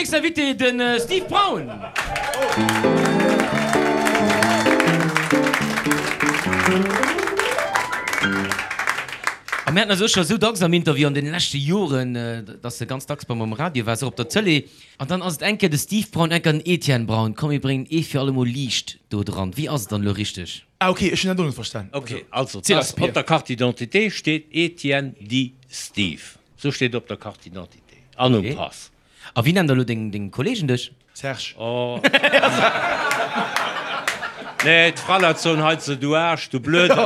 nächsten Invité, de Steve Braun. A mir haten eis och scho sou dacks am Interview an deene leschte Joren, dass e ganz dacks bei mer um Radio war, och op der Tëlee. An dann ass et eng Kéier de Steve Braun, eng Kéier den Etienne Braun. Komm mir bréngen ee fir allemol Liicht do dran. Wéi ass et dann elo richteg? Ah ok, ech hunn dat och net verstan. Ok, also et ass op der Carte d'identité steet Etienne dit Steve. Sou steet et op der Carte d'identité an um Pass. A wéi nennen da elo deng Kollegen dech? Serge. Oh. Nee, d'Fraleit soen hei ze, du Aarsch, du Blöden.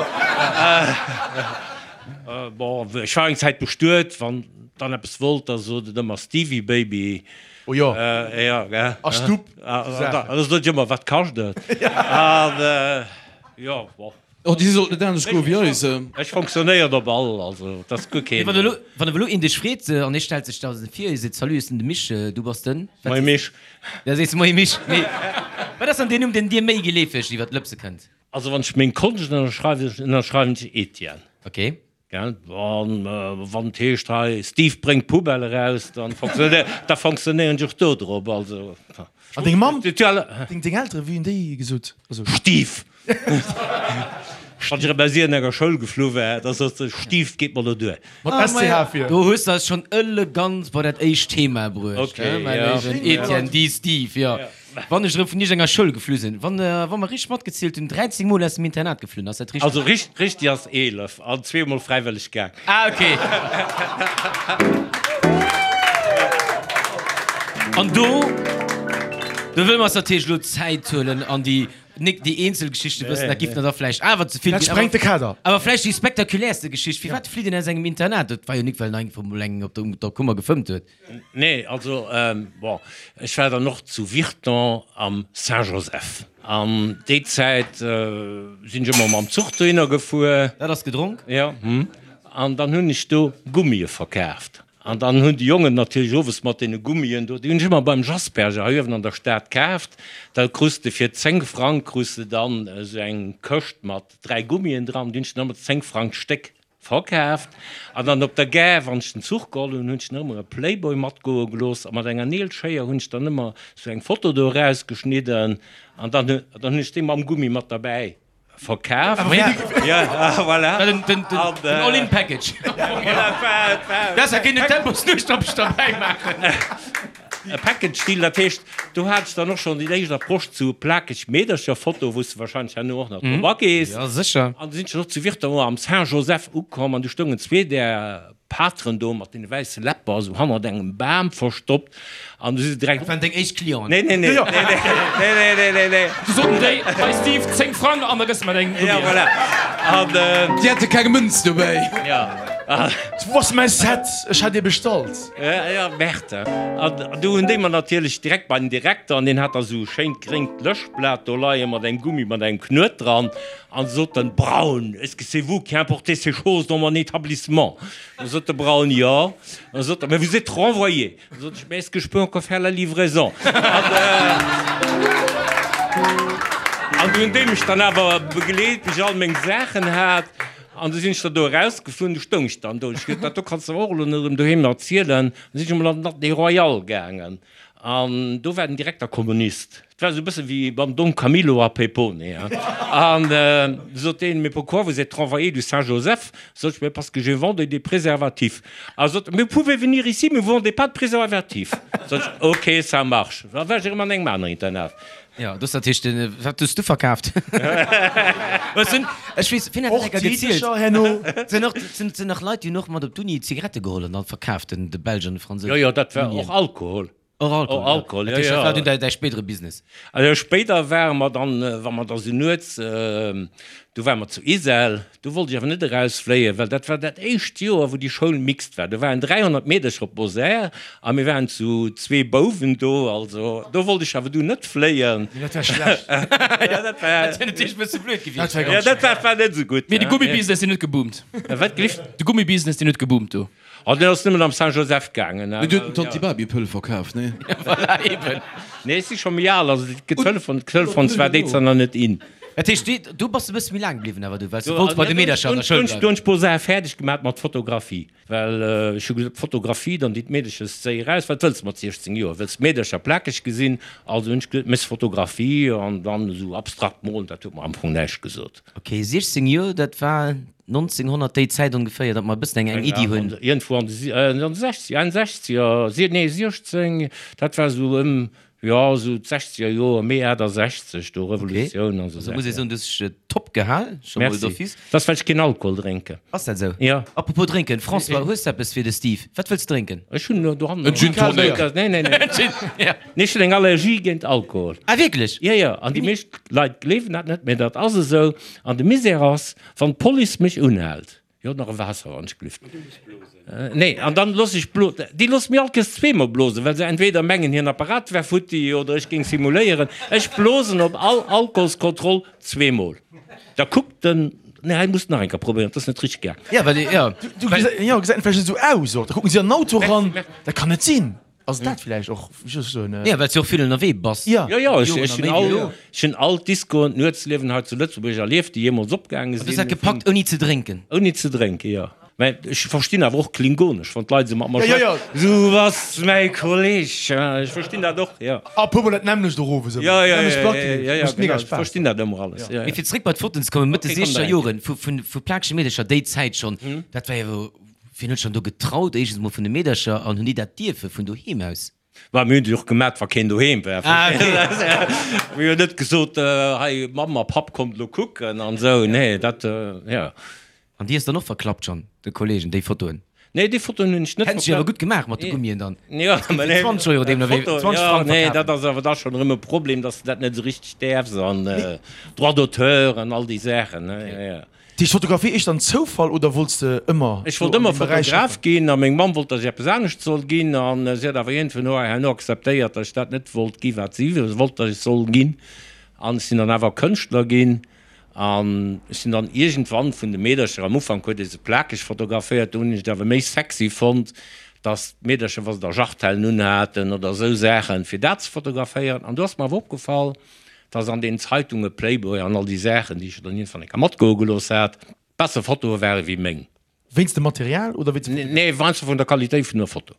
Bon, ech war eng Zäit bestuet, wann dann eppes wollt, da sot et ëmmer Stevie Baby. Oh jo. Ja, gell. A Stupp. A da sot ech ëmmer, wat kascht et? An jo, bon. Oh, déi sollt net anescht goe wéi eis. Ech fonctionnéieren op all, also et ass guer keen. Mee wann elo, wann elo een dech freet an hie stellt sech da vir, hie seet, Salut, ech sinn de Mich, du bass den? Moie Mich. Da sees de Moie Mich. Mee wat ass dann deen Numm, deen dir méi geleefeg iwwer d'Lëpse kënnt? Also wann ech meng Konscht ënnerschreiwen, ënnerschreiwen ech Etienne. Ok. Gell, an wann et heescht hei Steve bréngt d'Poubelle eraus, dann da fonctionnéieren ech och do drop. Also. An deng Mamm, deng Elteren, wéi hunn déi gesot? Also. Steve! Wann ech erëm aus iergendenger Schoul geflu war, da sot se, Steve, 't geet mer elo duer. Mat SCH vir. Do hues de eis schonn elegant bei dat éischt Thema bruecht, mäi léiwen Etienne, di Steve, jo. Wann ech erëm vun iergendenger Schoul geflu sinn, wann wa mer richteg matgezielt hunn, 13 Mol aus dem Internat geflunn, ass dat richteg? Also richteg ass 11 an zweemol fräiwëlleg gaang. Ah ok. An do, do wëlle mer eis natierlech elo Zäit huelen an déi, nik déi eenzel Geschichte wëssen, dat giff der da vläicht awer ze vill Dat ginn, sprengt de Kader. awer vläicht déi spektakuläerste Geschicht, Firwat flitt een aus engem Internat? Dat war jo nik well en einfach mol engem op der Kummer gefëmmt huet. Nee, also bon, ech war dann och zu Virton am Saint-Joseph. An déi Zäit sinn ech ëmmer mam Zuch dohinner gefuer. Dat ass gedronk? Jo. An dann hunn ech do Gummie verkaaft. An dann hunn déi Jongen natierlech owes mat deene Gummien do, déi hunn ech ëmmer beim Jasperger hei uewen an der Stad kaaft. Da krus de fir 10 Frang krus de dann esou eng Këscht mat 3 Gummien dran. Déi hunn ech dann ëmmer 10 Frang d'Stéck Verkaaft. An dann op der Gare, wann ech den Zuch geholl hunn, hunn ech dann ëmmer e Playboy matgoe gelooss a mat enger Neelschéier hunn ech dann ëmmer sou eng Foto do erausgeschnidden an dann dann hunn ech déi mam Gummi mat derbäi verkaaft. Ja, voilà. Den, den, den, den All-in-Package. Besser kéint en Temposnuecht derbäi maachen. E Package Deal, dat heescht, do hat ech dann och schonn déi éischt Approche zu plakeg Meedercher-Foto, wou s de wahrscheinlech herno och nach drop agees. Ja, sécher. An du sinn ech dann och zu Virton am Saint-Joseph ukomm an du stoungen zwee där Pateren do mat deene wäisse Läpper esou hannert engem Bam verstoppt an du si se direkt. Dat waren deng éischt Clienten? Nee, nee, nee, nee, nee, nee, nee, nee, nee. Du soten déi, Hei Steve, 10 Frang an da gëss de mer deng Ja, voilà. An. Déi hate keng Mënz dobäi. Ja. Wou ass mäi Set? Ech hat ee bestallt. Ja, Berthe. An du hunn déi mer natierlech direkt bei den Direkter, an deen hat da sou e schéint gréngt Löschblat do leie mat engem Gummi mat engem Knuet dran, an sot den Braun, Est-ce que c'est vous qui importez ces choses dans mon établissement? Da sot de Braun, Jo. Da sot e, Mais vous êtes renvoyé. Da sot ech, Mais est-ce que je peux encore faire la livraison? An du hunn déi mech dann awer begleet, bis ech all meng Saachen hat. An du sinn ech da do erausgeflunn, du stoung ech dann do. Ech gesot, dat do kanns de awer och elo net erëm doheem erzielen. An du sinn ech emol an den Atelier Royal gaangen an do war den Direkter Kommunist. Et war esou e bësse wéi beim Don Camillo a Pepone, hein. An du sot deen, Mais pourquoi vous êtes renvoyé du Saint-Joseph? Sot ech, Mais parce que je vendais des préservatifs. A sot, Mais vous pouvez venir ici, mais vous vendez pas de préservatifs. Sot ech, Ok, ça marche. Da war ech erëm an engem aneren Internat. Jo, dus dat heescht, wat hues du verkaaft? Ech sinn, ech weess, wien hat dat enker gezielt? Herno. Sinn och, sinn, sinn nach Leit, déi hunn och mat op d'Uni Zigarette geholl an dann verkaaft, den, de Belsch an de Fransous. Jo, jo, dat war och Alkohol. Och Alkohol, Och Alkohol, jo. jo, jo. Dat war dunn däi, däi spéidere Business. Also spéider ware mer dann, wa mer da sou nuets, du ware mer zu Ixelles, Do wollt ech awer net erausfléien, well dat war dat éischt Joer, wou déi Schoul mixed war. Do waren 300 Meedercher op Bosär a mir waren zu zwee Bouwen do. Also do wollt ech awer du net fléien. Nee, dat war schlecht. Ja, dat war. Dat wär natierlech e bësse blöd gewiescht. Dat war Ja, ganz dat schlecht. war, war net esou gutt. Mee de Gummibusiness, deen huet geboomt. Wat gelift? De Gummibusiness, deen huet geboomt do. Oh, deen ass nëmmen am Saint-Joseph gaangen. Mee du huet den Tanti Babi Pëll verkaaft, nee? Voilà, eben. Nee, ech si scho méi al, also d'Telefon, d'Telefons war déi Zäit nach net in. Dat heescht, do bass de e bësse méi laang bliwwen awer du, well s de wollts bei de Meedercher an der Schoul bleiwen. Do hunn ech puer Saache fäerdeg gemaat mat Fotografie, well ech hu gesot, Fotografie, dann déi d'Meedercher séi eraus, wat wëlls de mat 16 Joer, wëlls d'Meedercher plakeg gesinn? Also hunn ech gesot, méchs Fotografie an dann esou abstrakt molen, dat huet mer am Fong näischt gesot. Ok, 16 Joer, dat war 1900 déi Zäit ongeféier, datt mer e bëssen eng eng Iddi hunn. Iergendwou an de 60, 61er, nee 16, dat war esou ëm Jo, esou d'sechzeger Joer, Mee 68, do Revolutioun an esou Also muss ee soen, du hues dech top gehal, scho mol Merci. d'office. Dat ass, well ech keen Alkohol drénken. Ass dat esou? Jo. Apropos drénken, François, hues de eppes fir de Steve? Wat wëlls de drénken? Ech hunn elo dohannen. En Gin Tonic. Nee, nee, nee. Gin, ja. Nee, ech hunn eng Allergie géint Alkohol. Ah, wierklech? Jo, jo. An déi meescht Leit gleewen dat net, mee dat ass esou. An de Misär ass, wann d'Police mech unhält, Jo, nach e Waasser wann ech glift. Nee, an dann looss ech blo-, déi loosse mir alt kees zweemol blosen, well se entweder mengen hiren Apparat wär futti oder ech géing simuléieren. Ech blosen op all Alkoholskontroll zweemol. Da kuckt en, nee, hei muss nach eng Kéier probéieren, dat ass net richteg gaang. Ja, well, ja. Du, jo, gesäit vläicht esou aus och. Da kucken si an den Auto eran, dat kann net sinn. Ass dat vläicht och just esou en. Ja, well s du och vill ënnerwee bass. Ja. Jo, jo, ech, ech hunn all, ech hunn all d'Discoen, d'Nuetsliewen hei zu Lëtzebuerg erlieft, déi jeemools opgaange An du hues sinn. dat gepackt ouni ze drénken? Ouni ze drénken, jo. Mä ech verstinn awer och Klingonesch, wann d'Leit esou mat mer Ja, ja, schwätzen. Du bass mäi Kolleg, ech verstinn dat och, jo. A puer mol dat nämmlecht och owes ëmmer. Ja, ja, Nämmlecht ja, Plack, ja, ja, ja, mécht mega genau, ech Spaass. verstinn dat ëmmer alles, ja, Mee ja. fir zréck bei d'Fotoen ze kommen, Mëtt de Okay, komm, siechzeger da Joren, vu, vu, vu plakege Meedercher, déi Zäit schonn, dat war jo Wien huet schonn do getraut, éischtens mol vun de Meedercher, an hunn déi dat dierfe vun doheem aus? Mä mir hunn déi och gemat, wa keen doheem war. Ah, okay. Mir hunn net gesot, hei Mamm a Papp, kommt elo kucken an esou. Nee, dat, jo. An déi hues dann och verklappt schonn, de Kollegen, déi Fotoen? Nee, déi Fotoen hunn ech net Hätten se awer gutt gemaach mat de Gummien dann. Jo, mä nee. 20 Euro deemno wéi 20 Frang Nee, verkafen. dat ass awer da schonn erëm e Problem, dass de dat net esou richteg däerfs an Droit d'auteur an all déi Saachen, ne, jo, jo. Déi Fotografie, éischter en Zoufall oder wollts de ëmmer Ech wollt ëmmer Fotograf ginn a meng Mamm wollt, datt ech eppes anescht soll ginn an si huet awer iergendwou no herno akzeptéiert, datt ech dat net wollt gi wat si wollt, datt ech soll ginn an ech sinn dann awer Kënschtler ginn an ech sinn dann iergendwann vun de Meedercher, am Ufank huet ee se plakeg fotograféiert, do hunn ech et awer méi sexy fonnt, datt d'Meedercher, wa se da Jartellen unhaten oder esou Saachen, fir dat ze fotograféieren an do ass mer awer opgefall, dass an den Zeitunge Playboy an all déi Saachen, déi ech dann iergendwann eng Kéier matgoe gelooss hat, besser Fotoe ware wéi meng. Wéinst dem Material oder wéinst dem. Nee, weinst vun der Qualitéit vun der Foto.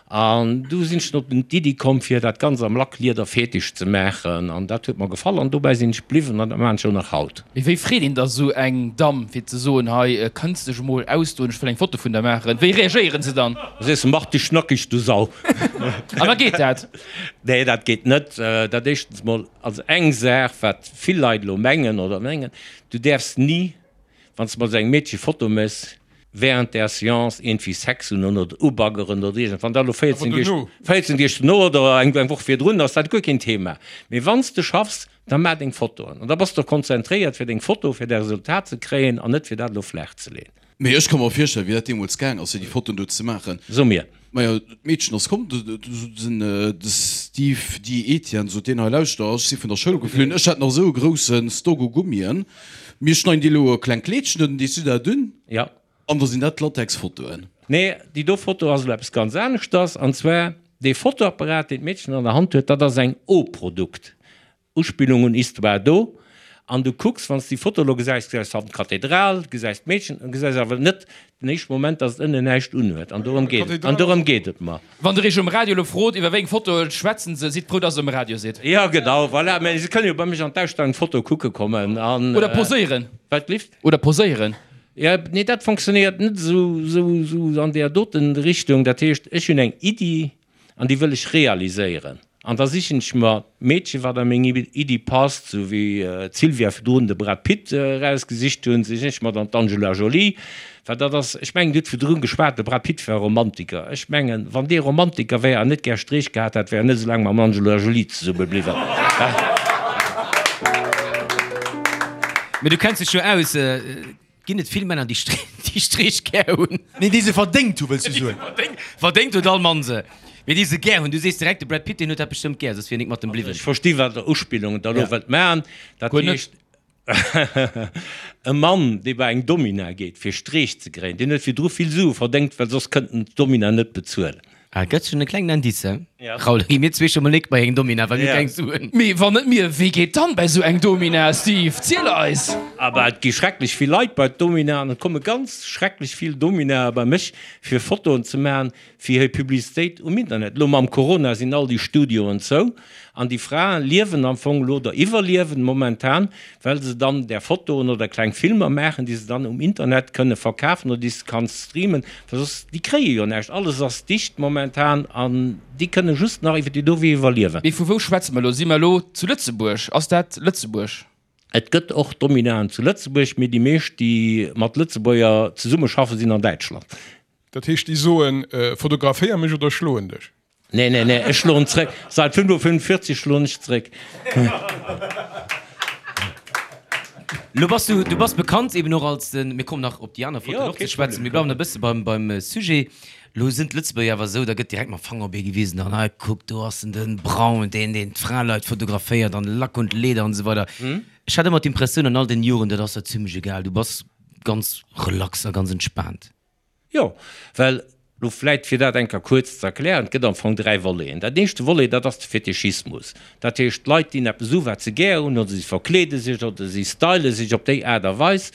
An du sinn ech op d'Iddi komm, fir dat Ganzt am Lacklieder fetich ze maachen. An dat huet mer gefall an dobäi sinn ech bliwwen an dat maachen ech och nach haut. Mee wéi freet een da sou eng Damm, fir ze soen, hei kënns dech emol ausdoen, ech wëll eng Foto vun der maachen? Wéi reagéieren se dann? Da sees de, Mach dech nackeg, du Sau! An da geet dat? Nee, dat geet net. Dat éischtens mol, also eng Saach, wat vill Leit elo mengen oder mengen, du däerfs ni, wann s de mat esou engem Meedche Foto méchs, während der Seance iergendwéi Sex hunn oder ubaggeren oder iergend, wann dat elo 14 Deeg, 14 Deeg dono oder eng Woch virdrun ass, dat guer keen Thema. Mee wann s de schaffs, da maach deng Fotoen an da bass de och konzentréiert fir deng Foto, fir däi Resultat ze kréien an net fir dat elo flaach ze leeën. Mee ech ka mer virstellen, wéi dat deemools gaang ass, fir déi Fotoen do ze maachen. So mir. Majo, d'Meedchen ass komm, den de Steve Di Etienne sot deen hei, Lauschter, ech si vun der Schoul geflunn, ech hat nach esou e grousse Stock u Gummien, mir schneiden dir elo e klengt Kleedchen un, dees du dat un? Ja. An da sinn dat Latex-Fotoen. Nee, déi do Foto ass elo eppes ganz aneschters, an zwar dee Fotoapparat, deen d'Meedchen an der Hand huet, dat ass eng O-Produkt. Uspillung un Histoire do, an du kucks, wann s de déi Foto elo gesäis, gesäis hannen d'Kathedral, gesäis d'Meedchen, an gesäis awer net den éischte Moment, dass et ënnen näischt unhuet. An dorëm geet et, an dorëm geet et mer. Wann der iech um Radio elo frot, iwwer wéi eng Fotoe schwätzen se, sidd frou, dass der um Radio sidd. Jo, genau, voilà. Mä se kënnen jo bei mech an d'Ausstellung d'Foto kucke kommen an. Oder poséieren. Wat, lift? Oder poséieren. Jo, nee, dat fonctionnéiert net esou, esou, esou an där doten Richtung. Dat heescht, ech hunn eng Iddi, An déi wëll ech realiséieren. An da sichen ech mer d'Meedchen, wat a meng Iddi passt, sou wéi d'Sylvia virdrun de Brad Pitt erausgesicht hunn, sichen ech mer dann d'Angela Jolie. Well dat ass, ech mengen, Dir hutt virdrun geschwat, de Brad Pitt war Romantiker. Ech mengen, wann dee Romantiker wär an net gär Streech gehat hätt, wär en net esou laang mam Angela Jolie zesumme bliwwen. Mee du kenns dech jo aus. Ginn et vill Männer, déi Streech gär hunn? Nee, déi se verdéngt hu, wëlls du soen. Verdéngt huet all Mann se. Mee déi se gär hunn. Du sees direkt, de Brad Pitt, deen huet dat bestëmmt gär, soss wier en nik mat em bliwwen. Ech versti wat der Uspillung der elo wëllt maachen. Dat heescht, e Mann, dee bei eng Domina geet, fir Streech ze kréien, deen huet virdru vill Sue verdéngt, well soss kënnt en d'Domina net bezuelen. Ah, gëtt schonn e klengen Indice. Raoul, da gi mir zwee scho mol nik bei eng Domina, well mir keng Suen. Mee wann net mir, wee geet dann bei sou eng Domina, Steve? Ziel eis! Aber et gi schrecklech vill Leit bei d'Domina an et komme ganz schrecklech vill Dominae bei mech fir Fotoen ze maachen fir hir Publicitéit um Internet. Elo mam Corona sinn all déi Studioen zou an déi Frae liewen am Fong elo oder iwwerliewen momentan, well se dann där Fotoen oder kleng Filmer maachen, déi se dann um Internet kënne verkafen oder déi s de kanns streamen, well soss, déi kréie jo näischt, alles ass dicht momentan an déi kënne just nach iwwer déi do Wee iwwerliewen. Mee vu wou schwätze mer elo? Si mer elo zu Lëtzebuerg? Ass dat Lëtzebuerg? Et gëtt och Dominaen zu Lëtzebuerg, mee déi meescht, déi mat Lëtzebuerger zesummeschaffen, sinn an Däitschland. Dat heescht, déi soen, Fotograféier mech oder ech schloen dech? Nee, nee, nee, ech schloen zréck. Seit 5.45 schloen ech zréck. Lo bass du, du bass bekannt eben och als den, mir kommen nach op déi aner Fotoen och ze schwätzen, mir bleiwen e bësse beim, beim Sujet. Lo sinn d'Lëtzebuerger awer esou, da gëtt direkt mam Fanger op ee gewisen an hei kuck, do ass en den Braun, deen, deen d'Fraleit fotograféiert an Lack und Leder an esou weider. Ech hat ëmmer d'Impressioun an all den Joren, dat ass der zimlech egal, du bass ganz relax a ganz entspaant. Jo, well, lo vläit fir dat eng Kéier kuerz ze erklären, et gëtt am Fong 3 Voleten. Dat éischte Volet, dat ass de Fetischismus. Dat heescht, d'Leit dinn eppes u wat se gär hunn, oder si verkleede sech oder si style sech op déi Aart a Weis.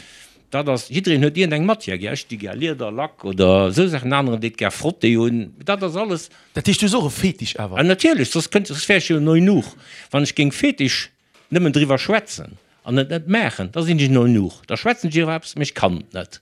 Dat ass, jiddereen huet iergendeng Matière gär. Ech di gär Lieder, Lack oder esou Saachen, en aneren deet gär Frotté un. Dat ass alles. Dat heescht, du hues och e Fetisch awer? Ah, natierlech, soss kënnt, soss wär ech jo en Eunuch. Wann ech géing Fetisch Nëmmen driwwer schwätzen an et net maachen, da sinn ech en Eunuch. Da schwätzen ech iwwer eppes, mee ech kann et net.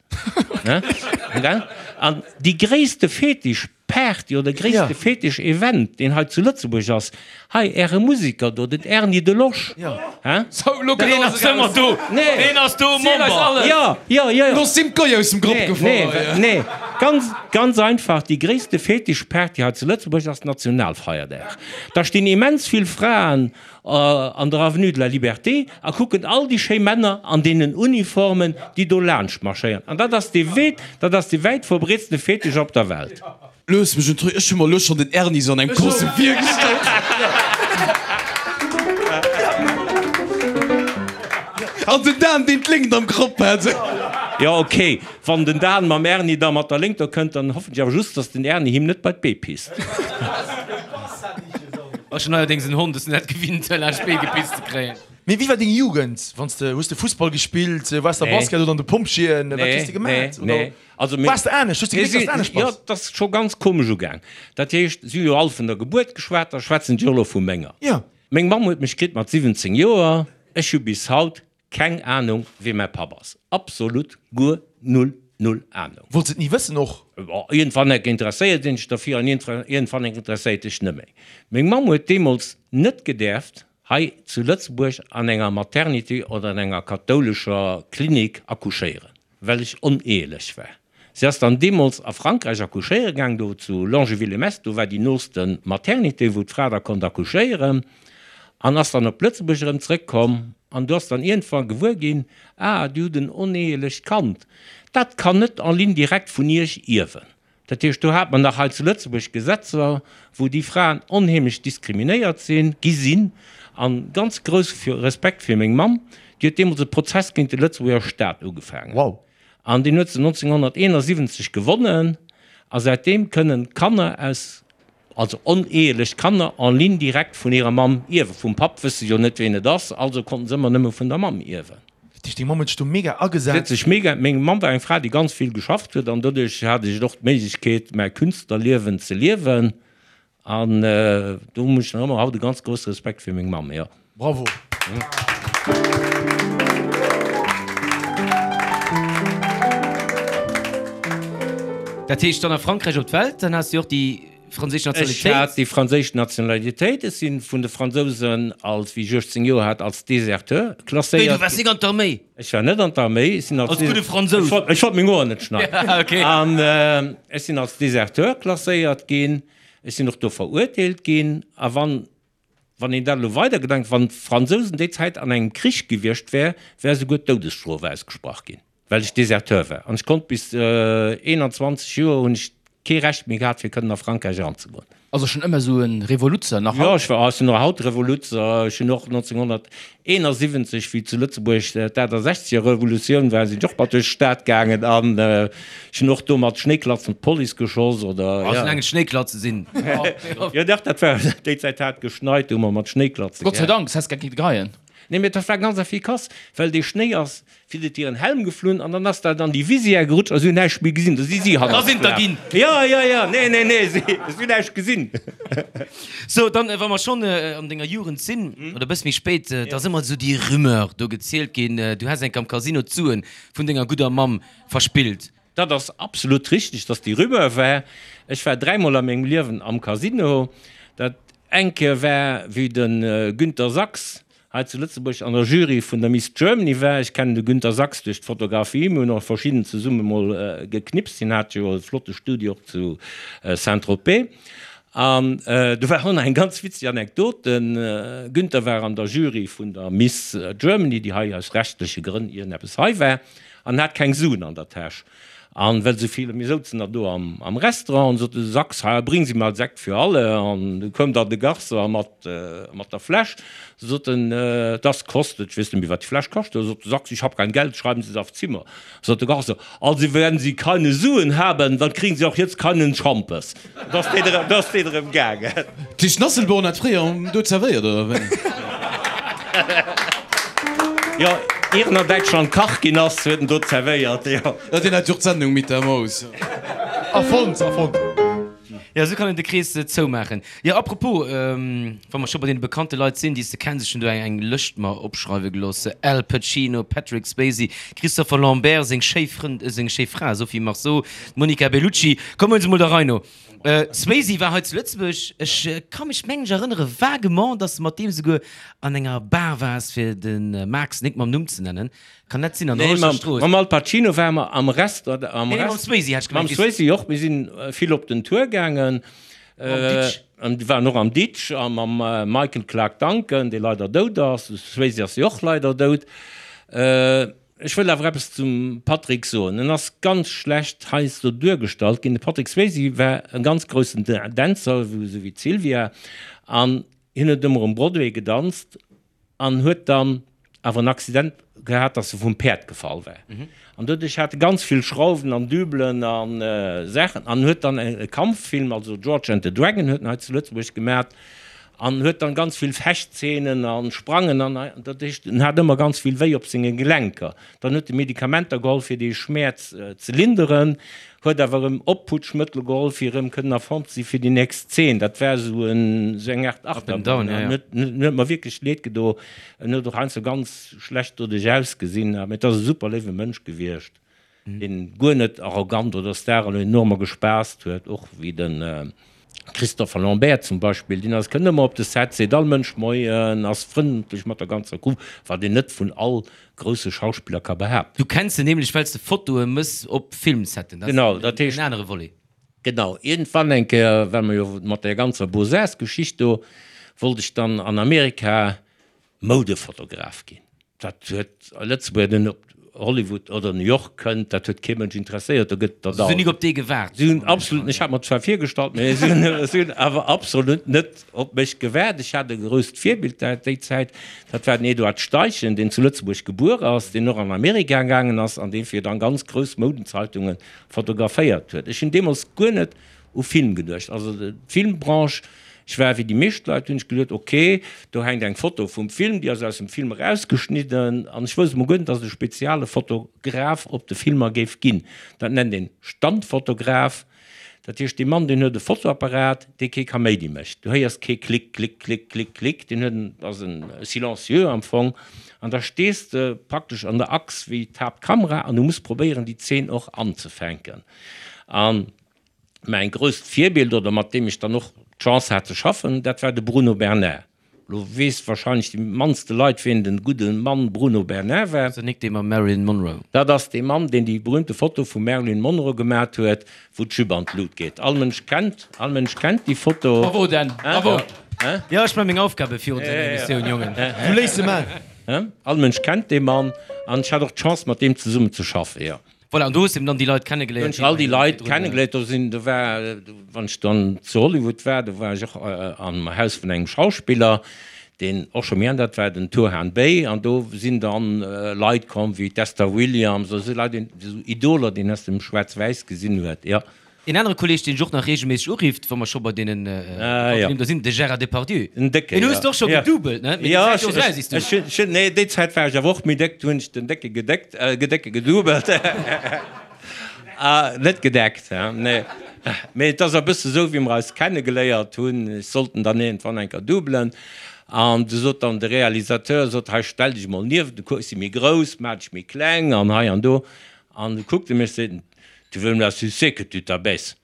An déi gréisste Fetischparty oder gréisste Fetischevent, deen hei zu Lëtzebuerg ass, hei äre Museker do, den Erny Delosch. Deen ass ëmmer do, deen ass do Member. Jo, jo, jo. Lo sinn d'Goy aus dem Grapp gefall. Nee, ganz, ganz einfach, déi gréisste Fetischparty hei zu Lëtzebuerg ass Nationalfeierdag. Da stinn immens vill Fraen an der Avenue de la Liberté a kucken all déi schéi Männer an deenen Uniformen, déi do laanscht marschéieren. An dat ass dee wéit, dat ass dee wäit verbreetste Fetisch op der Welt. Looss mech en Truc, ech hu mer elo schonn den Erny sou an engem Kostüm virgestallt. An den Dan, deen d'Léngt am Grapp hat. Jo, ok, wann den Dan mam Erny da mat der Léngt do kënnt, dann hoffen ech awer just, dass den Erny him net bei d'Bee pisst. Ass schon neierdéngs en Hond, ass net gewinnt laanscht d'Bee gepisst ze kréien. Mee wéi war deng Jugend? Wanns de, hues de Fussball gespillt, waars de am Basket oder an de Pompjeeën? Wat hues de gemaat? Oder waars de anescht? Hues de gemierkt, dass de anescht bass? Jo, dat ass scho ganz komesch ugaang. Dat heescht, si hu jo all vun der Gebuert geschwat, da schwätzen ech och elo vu menger. Meng Mamm huet mech kritt mat 17 Joer. Ech hu bis haut Keng Ahnung wee mäi Papp ass. Absolut guer null null Ahnung. Wollts et ni wëssen och? Bon, iergendwann enk interesséiert een sech derfir an iergendwann enk interesséiert dech net méi. Meng Mamm huet deemools net gedäerft hei zu Lëtzebuerg an enger Maternité oder an enger kathoulescher Klinik accouchéieren. Well ech oneehelech war. Si ass dann deemools a Frankräich accouchéiere gaang, do zu Longeville-les-Metz, do war déi nooste Maternité, wou d'Fra da konnt accouchéieren, an ass dann op Lëtzebuerg erëm zrëckkomm. An du ass dann iergendwann gewuer ginn, Ah, Dir hutt en oneehelecht Kand, dat kann net en ligne directe vun Iech ierwen. Dat heescht, do hat mer nach hei zu Lëtzebuerg Gesetzer, wou déi Fraen onheemlech diskriminéiert sinn, gi sinn. A ganz grouss Respekt fir meng Mamm, déi huet deemools e Prozess géint de Lëtzebuerger Staat ugefaangen. An deen huet se 1971 gewonnen. A säitdeem kënnen Kanner aus Also oneheelech Kanner en ligne directe vun hirer Mamm ierwen. Vum Papp wësse se jo net ween et ass, also konnten se ëmmer nëmme vun der Mamm ierwen. Dat heescht deng Mamm huet sech do mega agesat? Si huet sech mega, meng Mamm war eng Fra déi ganz vill geschafft huet an doduerch hat ech och d'Méiglechkeet mäi Künstlerliewen ze liewen an do hunn ech nach ëmmer haut e ganz grousse Respekt fir meng Mamm, jo. Bravo! Dat heescht dann a Frankräich op d'Welt, dann has de och déi franséisch Nationalitéit? Ech hat déi franséisch Nationalitéit. Ech si vun de Fransousen als, wéi ech 18 Joer hat, als Deserteur klasséiert. Wéi, du waars nik an d'Arméi? Ech war net an d'Arméi. Ech sinn als. Als gudde Fransous. Ech wollt meng Hoer net schneiden. An ech sinn als Deserteur klasséiert ginn. Ech sinn och do verurteelt ginn. A wann Wann een dat elo weidergedenkt, wann d'Fransousen déi Zäit an engem Krich gewiescht wär, wär esouguer d'Doudesstrof ausgesprach ginn, well ech Deserteur war. An ech konnt bis 21 Joer hunn ech. kee Recht méi gehat, fir kënnen a Frankräich eranzegoen. Also schonn ëmmer esou e Revoluzzer, nach haut? Jo, ech war, ech sinn och haut Revoluzzer. Ech hunn och 1971, wéi zu Lëtzebuerg d'Aachtasechzeger Revolutioun war, sinn ech och mat duerch d'Stad gaangen an ech hunn och do mat Schnéiklatzen d'Police geschoss oder, ja. Soulaang et Schnéiklatze sinn. Jo, dach, dat war, déi Zäit hat geschneit, do hu mer mat Schnéiklatze. Gott sei Dank, s häss gar kinne geheien. Nee, mee dat war ganz efficace, well dee Schnéi ass Fir et hiren Helm geflunn an dann ass dat an déi Visière gerutscht a si hunn näischt méi gesinn. Da si si hannerts Da sinn der ginn. Jo, jo, jo, nee, nee, nee, si hunn näischt gesinn. Sou, dann, wa mer schonn an denger Jugend sinn, oder e bësse méi spéit, da ass ëmmer esou déi Rumeur do gezielt ginn, du häss enk am Casino d'Suen vun denger gudder Mamm verspillt. Dat ass absolut richteg, dass déi Rumeur war. Ech war dräimol a mengem Liewen am Casino. Dat eng Kéier war, wéi de Günter Sachs hei zu Lëtzebuerg an der Jury vun der Miss Germany war. Ech kennen de Günter Sachs duerch d'Fotografie, mir hunn och verschidden zesumme mol geknipst, hien hat jo e flotte Studio och zu Saint-Tropez. An do war och nach eng ganz witzeg Anekdot, de Günter war an der Jury vun der Miss Germany, déi hei aus rechtleche Grënn iergendeppes hei war, an hat keng Suen an der Täsch. An well sou vill, mir souzen da do am Restaurant, an sot de Sachs, Ha, bring Sie mal Sekt für alle. An du koum dann de Garçon mat, mat der Fläsch, sot en, Das kostet, ech weess net méi, wat déi Fläsch kascht huet. Sot de Sachs, Ich hab kein Geld, schreiben Sie es auf Zimmer. Sot de Garçon, Also wenn Sie keine Suen haben, dann kriegen Sie auch jetzt keinen Schampes. Da ass deen erëm, da ass deen erëm gaangen. D'Tisch Nasselborn hat fréier do zerwéiert, oder wéi? Jo, ier en an Däitschland Kach ginn ass, huet en do zerwéiert, jo. Jo, deen hat jo och d'Sendung mit der Maus. Erfonnt, erfonnt. Jo, esou kann een de Krees zoumaachen. Jo, apropos, wa mer scho bei deene bekannte Leit sinn, déi s de kenns, ech hunn do eng Lëscht mer opschreiwe gelooss, Al Pacino, Patrick Swayze, Christopher Lambert, seng schéi Frënd, seng schéi Fra Sophie Marceau, D'Monica Bellucci, komm huel se mol der Rei no. Swayze war hei zu Lëtzebuerg, ech ka mech mengen ech erënnere vaguement, dass de mat deem souguer an enger Bar waars, fir de Max nik mam Numm ze nennen. Kann dat sinn? An der Hollerecher Strooss? Nee, mam Al Pacino ware mer am Restaurant. Nee, nee, mam Swayze hat ech gemengt. Mam Swayze och, mir sinn vill op den Tour gaangen. Mam Ditch. An waren och am Ditch a mam Michael Clarke Duncan, dee leider dout ass. De Swayze ass jo och leider dout. Ech wëll awer eppes zum Patrick soen. En ass ganz schlecht heiansdo duergestallt ginn. De Patrick Swayze war e ganz groussen Dänzer, esou wéi d'Sylvia, an hien huet ëmmer um Broadway gedanzt an huet dann awer en Accident gehat, dass e vum Päerd gefall war. An doduerch hat e ganz vill Schrauwen an Dübelen a Saachen an huet dann e Kampffilm, also George and the Dragon huet en hei zu Lëtzebuerg gemat, An huet dann ganz vill Fechtzeenen an Sprangen an dat heescht en hat ëmmer ganz vill wéi op senge Gelenker. Dann huet e Medikamenter geholl fir dee Schmäerz ze linderen, huet awer erëm Opputschmëttel geholl fir erëm kënnen a Form ze si fir déi nächst Zeen. Dat war esou en esou eng Aart Achterbahn. En huet en huet mer wierklech leed gedo. En huet och heiansdo ganz schlecht doduerch ausgesinn, mee et ass e super léiwe Mënsch gewiescht. deen guer net arrogant oder Star an enormer gespaasst huet, och wéi de Christopher Lambert zum Beispill, deen ass kënnt ëmmer op de Set, seet all Mënsch Moien, ass frëndlech mat der ganzer Crew, wat een net vun all grousse Schauspiller ka behaapten. Du kenns en nämlech well s de Fotoe mëss op Filmsetten, dat ass en anere Volet. Genau, iergendwann eng Kéier, well mer jo mat där ganzer Beaux-Arts-Geschicht do, wollt ech dann an Amerika Moudefotograf ginn. Dat huet a Lëtzebuerg den op Hollywood oder New York kënnt, dat huet kee Mënsch interesséiert. Do gëtt der da. Si hunn nik op dee gewaart. Si hunn absolut, ech hat mer zwar virgestallt, mä si hunn, si hunn awer absolut net op mech gewaart. Ech hat e grousst Virbild dat déi Zäit, dat war den Eduard Steichen, deen zu Lëtzebuerg gebuer ass, deen och an Amerika gaangen ass an dee fir dann ganz grouss Moudenzeitungen fotograféiert huet. Ech hunn deemools guer net u Film geduecht. Also d'Filmbranche, ech war wéi déi meescht Leit, hunn ech geduet, ok, do hänkt eng Foto vum Film, déi ass aus dem Film erausgeschnidden an ech wousst emol guer net, datt et e speziale Fotograf op de Filmer géif ginn. Dat nennt een Standfotograf. Dat heescht, dee Mann, deen huet e Fotoapparat, dee kee Kaméidi mécht. Du héiers kee Klick, Klick, Klick, Klick, Klick. Deen huet en, ass en silencieux am Fong. An da stees de praktesch an der Achs wéi d'Haaptkamera an du muss probéieren, déi Zeen och anzefänken. An mäin grousst Virbild, oder mat deem ech dann och d'Chance hat ze schaffen, dat war de Bruno Bernard. Lo weess wahrscheinlech déi mannste Leit, wien den gudde Mann Bruno Bernard war. Ass dat nik dee mam Marilyn Monroe? Dat ass dee Mann, deen déi berühmte Foto vum Marilyn Monroe gemat huet, wou d'Jupe an d'Lut geet. All Mënsch kennt, all Mënsch kennt déi Foto. Bravo Dan, bravo! Jo, ech man meng Aufgabe virun senger Emissioun, Jongen. Du léiss se man. All Mënsch kennt dee Mann an ech hat och d'Chance mat deem zesummen ze schaffen, jo. Voilà, an do hues de eben dann déi Leit kennegeléiert. Do hunn ech all déi Leit kennegeléiert. Do sinn, do war, wann ech dann zu Hollywood war, do war ech och am Haus vun engem Schauspiller, deen och scho méi al, dat war den Turhan Bey, an do sinn dann Leit komm wéi d'Esther Williams oder esou Leit, esou Idoler, déi een aus dem Schwaarz-Wäiss gesinn huet, jo. Een anere Kolleg, deen dech och nach reegelméisseg urifft, wa mer scho bei deenen bekannten Nimm do sinn, de Gérard Depardieu. Den Décken, Deen hues de och scho gedoubelt, ne? Mee déi Zäit gouf eraus, is du. Ech hunn, nee, déi Zäit war ech awer och méi déck, du hunn ech den Décke gedéckt, Gedécke gedoubelt. Net gedeckt, he, nee. Mee et ass e bësse sou, wéi mer eis kennegeléiert hunn. Ech sollt en dann iergendwann eng Kéier doubelen. An du sot dann de Realisateur, sot, hei stell dech mol nieft, du kucks, ech si méi grouss, maach dech méi kleng an hei an do. An du kuckt e mech, seet en, Tu veux me la sucer que tu t'abaisses.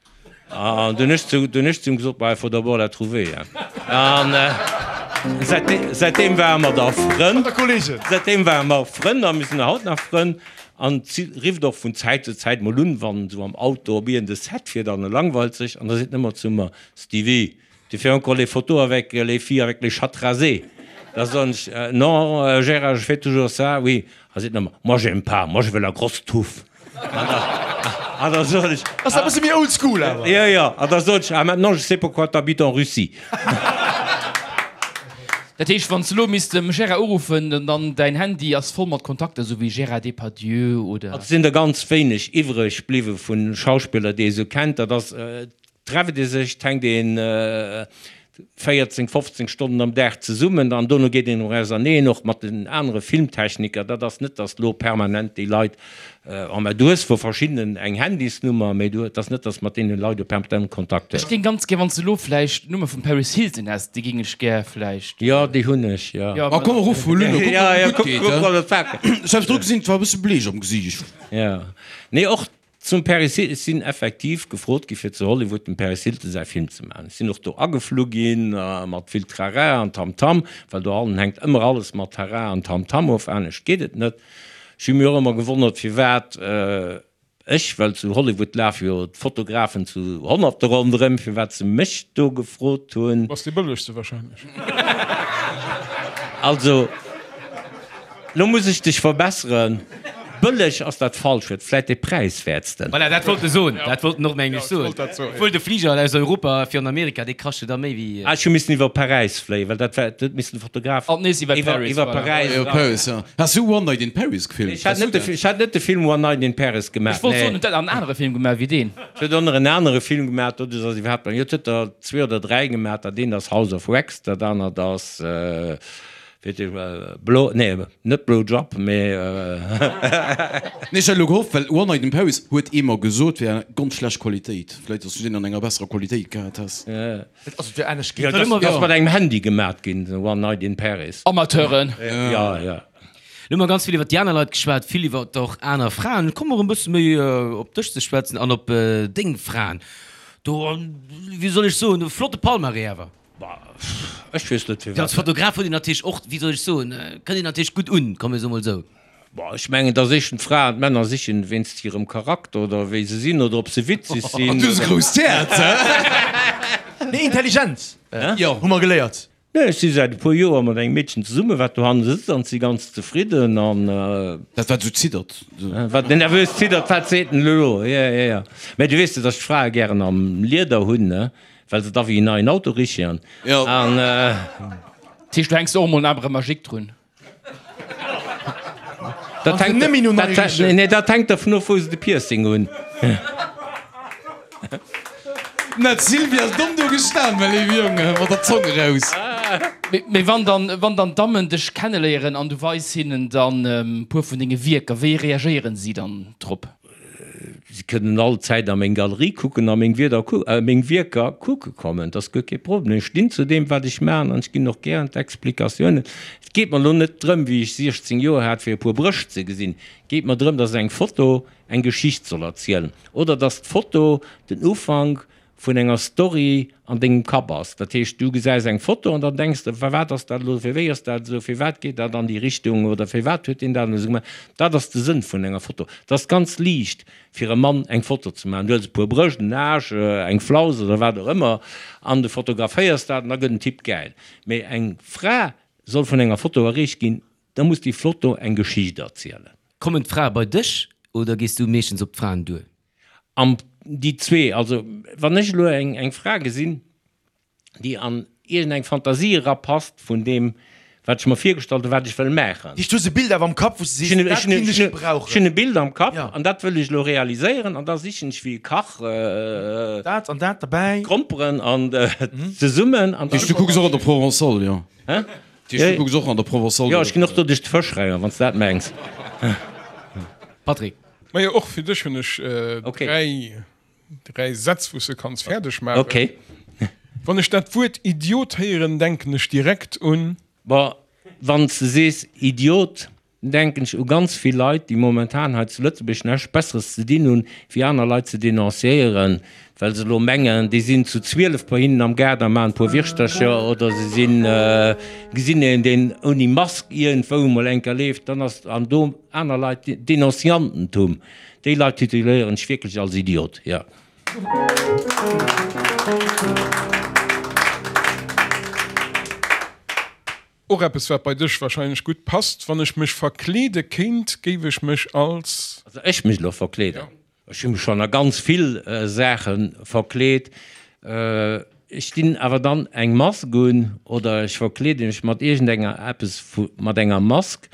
An dunn ech zu, dunn ech zu him gesot, Bah, il faut d'abord la trouver, hein. An säitdeem ware mer da Frënn. Säitdeem ware mer Frënn a mir sinn haut nach Frënn. An si rifft och vun Zäit zu Zäit mol un, wann esou am Auto op iergend e Set fiert an e langweilt sech. An da seet en ëmmer zu mer, Stevie, Tu fais encore les photos avec les filles avec les chattes rasées? Da soen ech, Non, Gérard, je fais toujours ça, oui. A seet en ëmmer, Moi j'aime pas, moi je veux la grosse touffe. An da soen ech. Ass e bësse méi old school awer. Jo, jo. An da soen ech, Ah, maintenant je sais pourquoi tu habites en Russie. Dat heescht, wann s de elo misst dem Gérard uruffen, dann däin Handy ass voll mat Kontakter, esou wéi Gérard Depardieu oder. Et sinn der ganz wéineg iwwreg bliwwe vu Schauspiller, déi ee sou kennt. Dat ass Trefft ee sech, 't hänkt een 14, 15 Stonnen am Dag zesummen an dono geet een och auserneen, och mat den anere Filmtechniker. Dat ass net, datt elo permanent déi Leit, oh mä du hues vu verschiddenen eng Handysnummer, mä du, et ass net, datt s mat deene Leit do permanent Kontakt hues. Ech géing ganz gär, wann s de elo vläicht d'Nummer vum Paris Hilton häss, déi géing ech gär vläicht. Jo, déi hunn ech, jo. Ah komm, ruff mol un, da kucke mer, ob et gutt geet, he? Ech hat dru gesinn, et war e bësse bleech am Gesiicht. Jo, nee, och Zum Paris Hilton, ech sinn effektiv gefrot gi fir zu Hollywood dem Paris Hilton säi Film ze maachen. Ech sinn och do ageflu ginn mat vill Trara an Tamtam, well dohannen hänkt ëmmer alles mat Tara an Tamtam of, anescht geet et net. Ech hu mir och ëmmer gewonnert firwat ech, well zu Hollywood lafe jo d'Fotografen zu Honnerte ronderëm, firwat se mech do gefrot hunn. Bass dee bëllegste wahrscheinlech. Also. Lo muss ech dech verbesseren, bëlleg ass dat falscht Wuert, vläit dee präiswäertsten. Voilà, dat wollt e soen, dat wollt en och mengen ech soen. Obwuel de Fliger aus Europa fir an Amerika, dee kascht jo da méi wéi. Ah, ech hu missen iwwer Paräis fléien, well dat war, dat huet missen de Fotograf An nees iwwer Paris, iwwer voilà. Paräis. Iwwer Paris, ja. Has du One Night in Paris gefilmt? Ech hat net de, ech hat net de Film One Night in Paris gemaach, Ech wollt soen, nee. huet dat an anere Film gemaach wéi deen? Et huet och nach en anere Film gemaach, do ass iwwerhaapt, jo, et huet der zwee oder dräi gemaach, dat eent ass House of Wax, dat anert ass. Blow, nee, net Blow Job, mee. Nee, ech hat elo gehofft, well One Night in Paris huet ee mer gesot wär ganz schlecht Qualitéit. Vläit dass du deen an enger besserer Qualitéit gehat häss. Also et wär anescht ginn. Dat ass mat engem Handy gemat ginn, One Night in Paris. Amateuren. Ja, ja. Lo hu mer ganz vill iwwer déi aner Leit geschwat, vill iwwer och aner Fraen. Komme mer e bësse méi op dech ze schwätzen an op deng Fraen. Do, wéi soll ech soen, e flotte Palmarès awer. Bah, ech weess net firwat. Als Fotograf huet een natierlech och, wéi soll ech soen, kënnt een natierlech gutt un, komm mir soe mol esou. Bah, ech mengen, dass éischten d'Fraen d'Männer sichen wéinst hirem Charakter oder wéi se sinn oder ob se witzeg sinn. An du hues e grousst Häerz, hä? Nee, Intelligenz, hu mer geléiert. Nee, ech si säit e puer Joer mat engem Meedchen zesummen, wat dohanne sëtzt an si ganz zefridden an. Dat wat esou ziddert. Wat nervös ziddert, wat seet en elo? Jo, jo, jo. Mä du weess jo, dass ech d'Frae gären am Lieder hunn, ne? Well se da wéi en neien Auto richen. An. Dat heescht, du hänks och emol en Arbre magique drun? Dat hänkt, dat, nee, dat hänkt dervun of, wou se de Piercing hunn. Na, d'Sylvie ass domm do gestan, well ee Jong mat der Zong eraus. Mee wann dann, wann dann d'Dammen dech kenneléieren an du weis hinnen dann e puer vun denge Wierker, wéi reagéieren si dann drop? Si kënnen all Zäit a meng Galerie kucken a meng Wierder, meng Wierker kucke kommen. Dat ass guer kee Problem. Ech stinn zu deem, wat ech maachen an ech ginn och gären d'Explikatiounen. Et geet mer elo net drëm, wéi ech 16 Joer hat, fir e puer Brëscht ze gesinn. Et geet mer drëm, dass eng Foto eng Geschicht soll erzielen oder dass d'Foto den Ufank vun enger Story an dengem Kapp ass. Dat heescht, du gesäis eng Foto an dann denks de, firwat ass dat elo, fir wéi ass dat esou, firwat geet dat an déi Richtung oder firwat huet deen dat elo esou gemaach. Dat ass de Sënn vun enger Foto. Et ass ganz liicht fir e Mann eng Foto ze maachen. Du huels e puer Brëscht, en Aarsch, eng Flaus oder wat och ëmmer an du fotograféiers dat an da gëtt den Typ gäil. Mee eng Fra soll vun enger Foto erreecht ginn, da muss déi Foto eng Geschicht erzielen. Kommen d'Frae bei dech? Oder gees du meeschtens op d'Fraen duer? Am, déi zwee. Also wann ech elo eng, eng Fra gesinn, déi an iergendeng Fantasie erapasst vun deem, wat ech mer virgestallt hunn, wat ech wëll maachen. Heescht, du hues e Bild awer am Kapp, wou s de sees, dat kéint ech gebrauchen. Ech hunn e Bild am Kapp an dat wëll ech elo realiséieren an da sichen ech wéi e Kach. Dat an dat derbäi. D'Gromperen an zesummen an. Heescht, du kucks och an der Provençale, jo? Hä? Heescht, du kucks och an der Provençale? Jo, ech ginn och do duerch d'Fëschreier, wann s de dat mengs. Patrick. Majo, och fir dech hunn ech 3 3 Sätz, wou s de kanns fäerdeg maachen. Okay. Wann ech dat Wuert Idiot héieren, denken ech direkt un. Bon, wann s de sees Idiot, denken ech u ganz vill Leit, déi momentan hei zu Lëtzebuerg näischt Besseres ze dinn hunn, wéi aner Leit ze denonciéieren, well se elo mengen, déi sinn zu 12 bei hinnen am Gaart a maachen e puer Wirschtercher oder se sinn, gesinn een, deen ouni Mask iergendwou emol eng Kéier leeft, dann ass, an do aner Leit, Denonciantentum. Déi Leit tituléieren ech wierklech als Idiot, jo. Och eppes wat bei dech wahrscheinlech gutt passt, Wann ech mech verkleede kéint, géif ech mech als. Also ech mech elo verkleeden? Ech hu mech schonn a ganz vill Saache verkleet. Ech dinn awer dann eng Mask un oder ech verkleede mech mat iergendenger eppes mat enger Mask,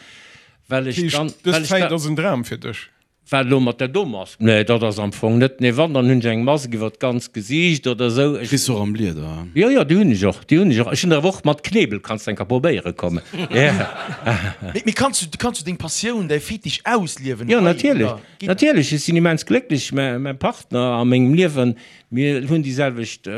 well ech dann. Dës Zäit ass en Dram fir dech? Wat elo mat där do Mask? Nee, dat ass am Fong net. Nee, wann, dann hunn ech eng Mask iwwer d'ganzt Gesiicht oder esou. Ech. Kriss och am Lieder, hein? Jo, jo, déi hunn ech och, déi hunn ech och. Ech hunn der awer och mat Knebel, kanns de eng Kéier probéiere kommen. Mee, mee kanns du, kanns du deng Passioun, däi Fetisch ausliewen Jo, natierlech, natierlech. Ech sinn immens glécklech. Mä, mäi Partner a mengem Liewen, mir hunn déi selwecht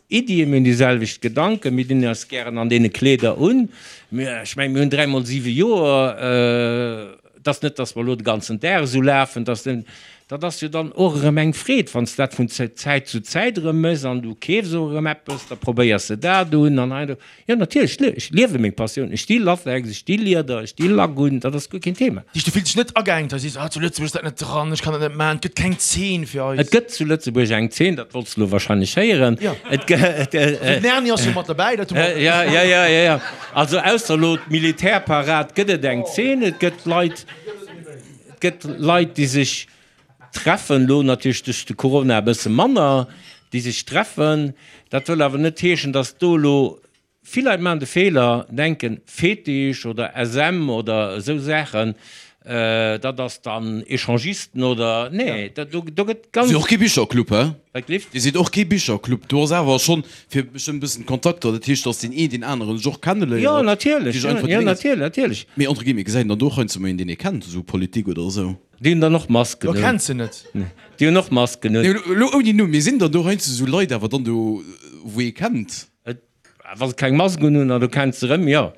Iddien, mir hunn déi selwecht Gedanken, mir dinn eis gären an deene Kleeder un. Mir, ech mengen, mir hunn dräimol siwe Joer. Et ass net, datt mer elo de ganzen Dag esou lafen, datt den, dat ass jo dann och erëm eng Freed, wann s de dat vun Zäit zu Zäit erëm méchs an du keefs och erëm eppes, da probéiers de dat un an hei an do. Jo, natierlech, ech liewe meng Passioun, ech sti Latex, ech sti Lieder, ech sti Lack un, dat ass guer keen Thema. Du fills dech net ageengt, hei sees, ah zu Lëtzebuerg ass dat net dran, ech kann dat net maachen, et gëtt keng Zeen fir eis. Et gëtt zu Lëtzebuerg eng Zeen, dat wollts de elo wahrscheinlech héieren. Jo. Et gëtt. Den Erni ass jo mat derbäi, dat hu mer. Jo, jo, jo, jo, jo. Also ausser elo d'Militärparad gëtt et eng Zeen. Et gëtt Leit, et gëtt Leit, déi sech treffen, elo natierlech duerch de Corona e bësse manner, déi sech treffen. Dat wëll awer net heeschen, datt do elo, vill Leit maachen de Feeler, denken, Fetisch oder SM oder esou Saachen, dat ass dann Echangisten oder, nee, do gëtt ganz. Dir sidd och kee Bicherclub, hä? Wat gleeft? Dir sidd och kee Bicherclub. Do ass awer schonn fir bestëmmt e bëssen Kontakter, dat heescht, datt deen een deen aneren sech och kenneléiert. Jo, natierlech, jo, natierlech, natierlech. Mee entre guillemets, gesäit een dann do och heiansdo mol een, deen ee kennt, esou Politik oder esou? Déi hunn dann och Masken un. Do kenns se net. Déi hunn och Masken un. Nee, elo ouni Numm, mee sinn dann do heiansdo esou Leit awer dann do, wou ee kennt? Wa se keng Mask unhunn an du kenns se erëm, jo.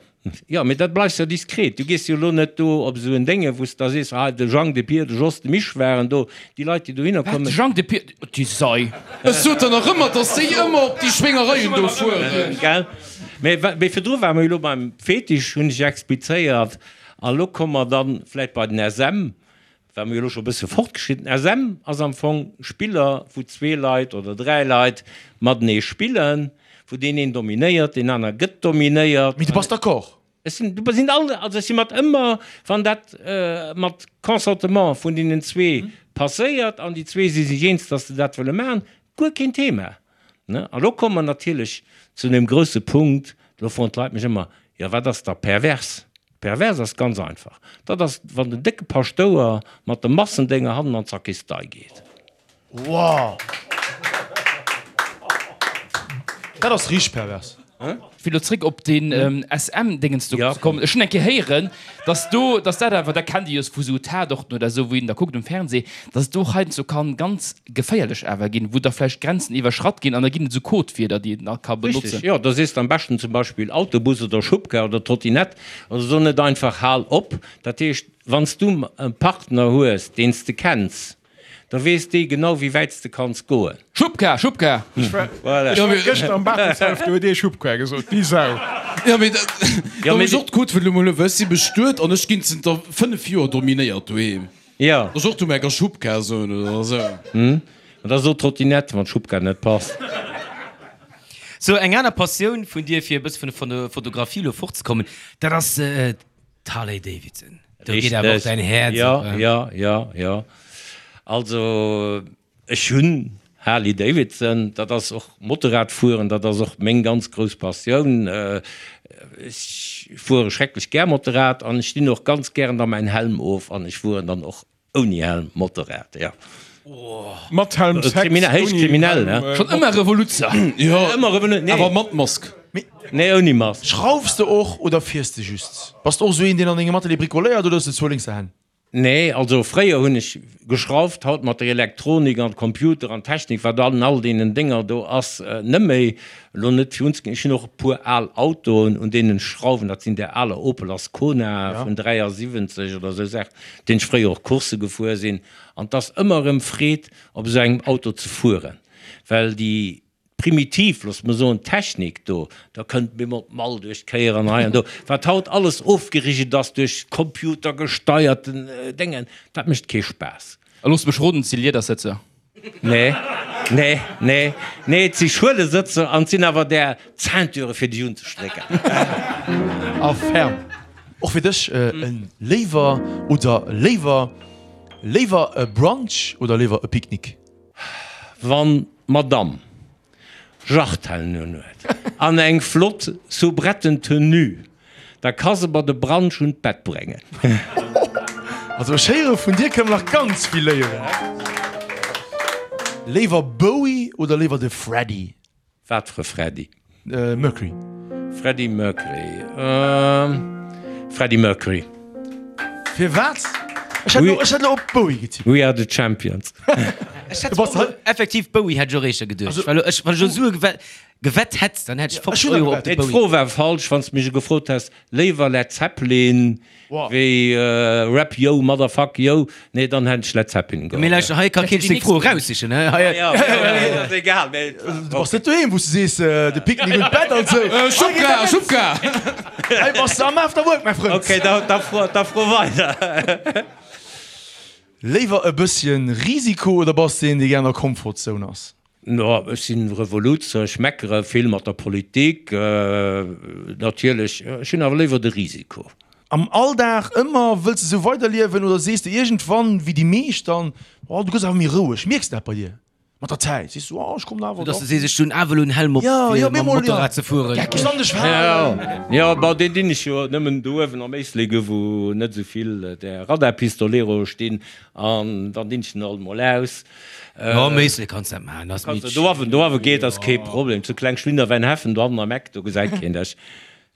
Jo, mee dat bleifs jo diskret. Du gees jo elo net do op esou en Dénge, wou s de da sees, ah, de Jang, de Pier, de Jos, de Misch waren do. Déi Leit, déi dohinner kommen. Wat, de Jang, de Pier, déi Sei. Ech sot der nach ëmmer, dass déi ëmmer op déi Schwéngereien do fueren. Gell? Mee, mee virdru ware mer jo elo beim Fetisch, hunn ech explizéiert. A lo komme mer dann vläicht bei den SM. War mir elo scho bësse fortgeschritten. SM ass am Fong Spiller, wou zwee Leit oder dräi Leit matenee spillen, wou deen een dominéiert, deen aner gëtt dominéiert. Mee du bass d'accord? Ech sinn, du sinn all, also ech si mat ëmmer, wann dat mat Consentement vun deenen zwee passéiert an déi zwee si sech eens, datt se dat wëlle maachen, guer keen Thema. Ne? A lo komme mer natierlech zu deem grousse Punkt, do froen d'Leit mech ëmmer, jo wat ass da pervers? Pervers ass ganz einfach, dat ass wann den décke Paschtouer mat de Massendénger hannen an d'Sakristei geet. Wow! Dat ass richteg pervers. Fir elo zréck op deen SM-Dingens do ze kommen, ech hunn eng Kéier héieren, dass do, dass dat awer, dat kennt Dir jo vu sou Tatorten oder esou, wou een da kuckt um Fernseh, dass et do heiansdo kann ganz geféierlech awer ginn, wou da vläicht Grenzen iwwerschratt ginn an da ginn et esou Codewierder, déi een da ka benotzen. Richtig, jo, da sees de am beschten zum Beispill Autobus oder Schubkar oder Trottinett oder so, net einfach Hal op. Dat heescht, wann s du e Partner hues, deen s de kenns, da weess dee genau, wéi wäit s de kanns goen. Schubkar, Schubkar! Ech war, ech war gëschter am Bartelshaff, do huet ee Schubkar gesot, déi Sau. Jo, mee da muss och d'Codewuert elo mol hunn, well ech si bestuet an ech ginn zënter 5 Joer dominéiert doheem. Jo. Dass och du mär ka Schubkar soen oder esou. Hm, an da so Trottinette, wann d'Schubkar net passt. Sou, eng aner Passioun vun dir, fir e bësse vun der Fotografie elo fortzekommen, dat ass d'Harley Davidson. Do geet awer och däin Häerz Jo, op. jo, jo, jo. Also ech hunn Harley Davidson, dat ass och Motorrad fueren, dat ass och meng ganz grouss Passioun. Ech fuere schrecklech gär Motorrad an ech dinn och ganz gären da mäin Helm of an ech fueren dann och Ouni Helm Motorrad, jo. Mat Helm Sex, Kriminell, héich ouni kriminell, Helm, ne? Schonn ëmmer Revoluzzer. Jo, Ëmmer Revoluzzer, nee. awer mat Mask. Nee, ouni Mask. Schraufs de och oder fiers de just? Bass de och esou een deen an dengem Atelier bricoléiert oder hues de zwou lénkser Hänn? Nee, also fréier hunn ech geschrauft, haut mat der Elektronik an Computer an Technik wat an all deenen Dénger do ass, net méi. Elo net fir unzeginn, ech hunn och e puer al Autoen un deenen ech schrauwen, dat sinn där aler Opel Ascona vun 73 oder esou Saachen, deen ech fréier och Coursse gefuer sinn. An 't ass ëmmer erëm Freed op esou engem Auto ze fueren, well déi primitiv, looss mer soen, Technik do, da kënnt bemol d'Mall duerch d'Kéier an hei an do, wat haut alles ofgerigelt ass duerch computergesteierten Déngen, dat mécht kee Spaass. A looss mech roden, 't si Liedersëtzer. Nee, nee, nee, nee, et si Schuelesëtzer an et sinn awer där Ceinture fir dech unzestrécken. A ferm. Och fir dech e léiwer oder léiwer, léiwer e Brunch oder léiwer e Picknick? Wann d'Madame Jartellen un huet an eng flott Soubretten-Tenue, da ka se mer de Brunch un d'Bett bréngen. Also ech héiere vun dir kënne mer nach ganz vill léieren. Léiwer Bowie oder léiwer de Freddie? Wat fir e Freddie? Mercury. Freddie Mercury, Freddie Mercury. Firwat? Ech hätt elo, ech hätt elo op Bowie getippt. We are the champions. Ech hätt och effektiv Bowie hätt ech och éischter geduecht, well ech, wann ech elo Sue gewett hätt, dann hätt ech 50 Euro op de Mee Bowie. d'Fro war falsch, wann s de mech gefrot häss, léiwer Led Zeppelin wéi Rap Yo Motherfuck Yo, nee dann hätt ech Led Zeppelin Mee geholl. lauschter, hei ka keen seng Fro eraussichen, he? Hei. Jo, jo, ass egal, mee. Du bass net doheem, wou s de sees, de Picknick un d'Bett an sou. Schubka, Schubka! Hei bass de am Afterwork, mäi Frënd. Ok, da, da fro, da fro weider. Léiwer e bësschen Risiko oder bass de een, dee gär an der Comfortzone ass? No, ech sinn Revoluzzer, ech meckere vill mat der Politik, natierlech, ech hunn awer léiwer de Risiko. Am Alldag ëmmer, wëlls de sou weiderliewen oder sees de iergendwann, wéi déi meescht dann, oh du gëss awer méi roueg, mierks de dat bei dir mat der Zäit, sees du, oh ech kommen awer Dass de sees, ech hunn awer elo en Helm op fir mam Motorrad ze fueren. Ech kann dech falen. Jo, bon, deen dinn ech jo nëmmen do uewen am Éislek, wou net esou vill där Radarpistoleroe stinn, an dann dinn ech den alt mol aus. Jo, am Éislek kanns dat maachen, ass méi Do awen, do awe geet, ass kee Problem. Zu Kleng Schlinnerwäinheffen, do hannen am Eck, do gesäit keen dech.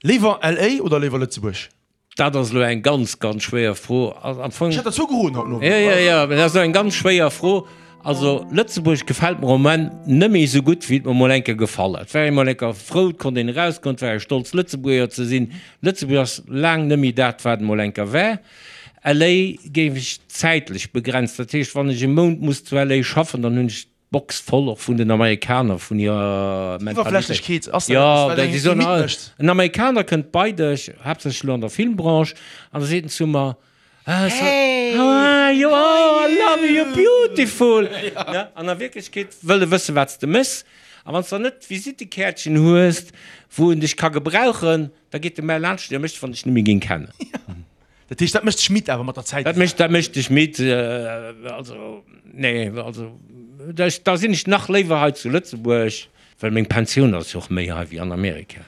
Léiwer LA oder léiwer Lëtzebuerg? Dat ass elo eng ganz, ganz schwéier Fro. Am Fong. Ech hat der zwou geroden haut Nowend. Jo, jo, jo, mä dat ass elo eng ganz schwéier Fro. Also, Lëtzebuerg gefält mer am Moment net méi esou gutt, wéi et mer mol eng Kéier gefall huet. Et war ee mol eng Kéier frou, et konnt een erausgoen, et war ee stolz, Lëtzebuerger ze sinn. Lëtzebuerg ass laang net méi dat, wat et mol eng Kéier war. LA géif ech zäitlech begrenzt, dat heescht wann ech e Mount muss zu LA schaffen, dann hunn ech d'Box voll och vun den Amerikaner, vun hirer Mentalitéit. Iwwerflächlechkeet ass dat Jo, eppes, wat déi eng soen midd all, mécht. en Amerikaner kënnt bei dech, haaptsächlech elo an der Filmbranche, an da seet en zu mer, Ah, so, how are you, oh, I love you, you're beautiful. Ne? An a Wierklechkeet wëll e wëssen, wat s de méchs. A wann s de dann net d'Visittekäertchen hues, wou en dech ka gebrauchen, da geet e mä laanscht dech a mécht, wann dech net méi géing kennen. Dat heescht, dat mécht dech midd awer mat der Zäit? Dat mécht, dat mécht dech midd. Also, nee, also da, da sinn ech nach léiwer hei zu Lëtzebuerg, well meng Pensioun ass jo och méi hei wéi an Amerika.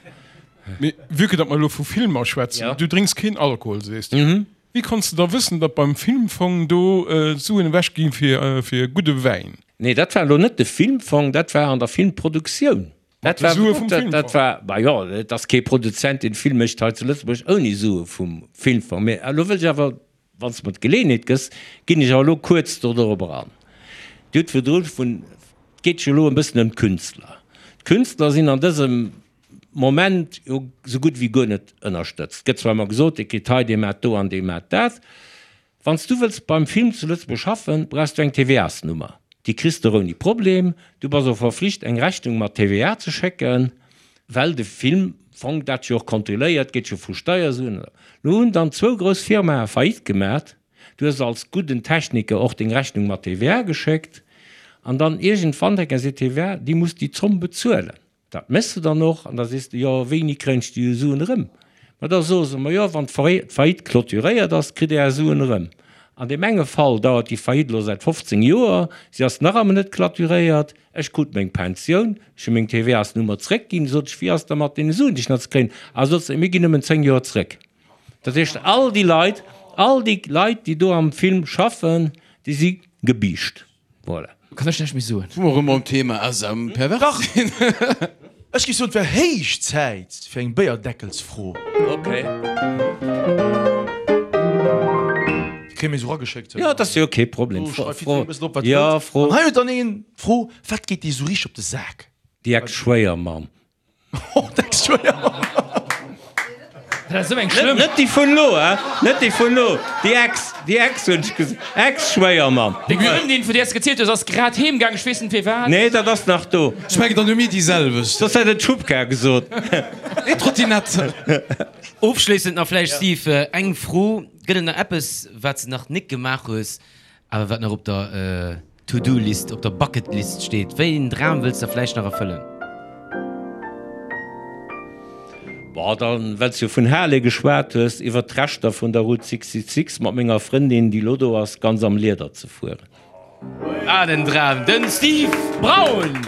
Mee vue que datt mer elo vu Filmer schwätzen, du drénks keen Alkohol, sees du. Wéi konns de da wëssen, datt beim Filmfong do d'Suen ewech gi fir, fir gudde Wäin? Nee, dat war elo net de Filmfong, dat war an der Filmproduktioun. Dat war, Sue vum Filmfong. dat war, bah jo, et ass kee Produzent, deen Film mécht hei zu Lëtzebuerg ouni Sue vum Filmfong. Mee elo wëll ech awer, wann s de mer d'Geleeënheet gëss, ginn ech awer elo kuerz do dorobber an. Dir hutt virdru vun, et geet jo elo e bëssen ëm d'Künstler. D'Künstler sinn an dësem Moment jo sou gutt wéi guer net ënnerstëtzt. Et gëtt zwar ëmmer gesot, dee kritt hei, dee maacht do an dee maacht dat. Wann s du wëlls beim Film zu Lëtzebuerg schaffen, brauchs du eng TVA-s-Nummer. Déi kriss de och ouni Problem. Du bass och verflicht eng Rechnung mat TVA ze schécken, well de Filmfong dat jo och kontrolléiert, geet jo vu Steiersuen. Lo hunn dann zwou grouss Firmae Faillite gemat. Du hues als gudden Techniker och deng Rechnung mat TVA geschéckt an dann iergendwann denken se, TVA, déi muss déi Zomm bezuelen. Dat méchs de dann och an da sees de, jo, wéini kréien ech déi Suen erëm? Ma da soe se, ma jo, wann d'Faillite clôturéiert ass, kritt Dir Är Suen erëm. An deem enge Fall dauert déi Faillite elo säit 15 Joer, si ass nach ëmmer net clôturéiert, ech krut meng Pensioun, ech hu meng TVA-s-Nummer zréckginn, sot ech, wéi ass da mat deene Suen, déi ech nach ze kréien? A sot se, mir ginn nëmmen 10 Joer zréck. Dat heescht, all déi Leit, all déi Leit, déi do am Film schaffen, déi si gebiischt. Voilà. Kann ech näischt méi soen. Wou mer erëm beim Thema SM pervers sinn. Ech géif soen, et wär héich Zäit fir eng Béierdeckelsfro. Ok. Déi kréie mir esou erageschéckt. Jo, dat ass jo kee Problem. Do schreift jiddwereen e bëssen drop, wat Jo, wëllt. Fro. An hei huet dann een d'Fro, Wat geet dir esou richteg op de Sak? Déi Ex-Schwéiermamm. Oh, d'Ex-Schwéiermamm. Dat ass esou eng schlëmm. Net déi vun elo, hein? Net déi vun elo, déi Ex, déi Ex hunn ech gesot. Ex-Schwéiermamm. Deng Frëndin, vun där s de gezielt hues, ass grad heem gaang, ech weess net firwat. Nee, dat ass nach do. Ech mengen, dann hu mir déi selwecht. Soss hätt et d'Schubkar gesot. Nee, d'Trottinette. Ofschléissend nach vläicht, Steve, eng Fro, Gëtt et nach eppes, wat s de nach nik gemaach hues, awer wat nach op der To-Do-List, op der Bucket-List steet? Wéi een Dram wëlls de vläicht nach erfëllen? Bon, dann, well s du vun Harley geschwat hues, iwwert d'Rechter vun der Route 66 mat menger Frëndin, déi lo do ass, ganz am Lieder ze fueren. Wat en Dram! Den Steve Braun!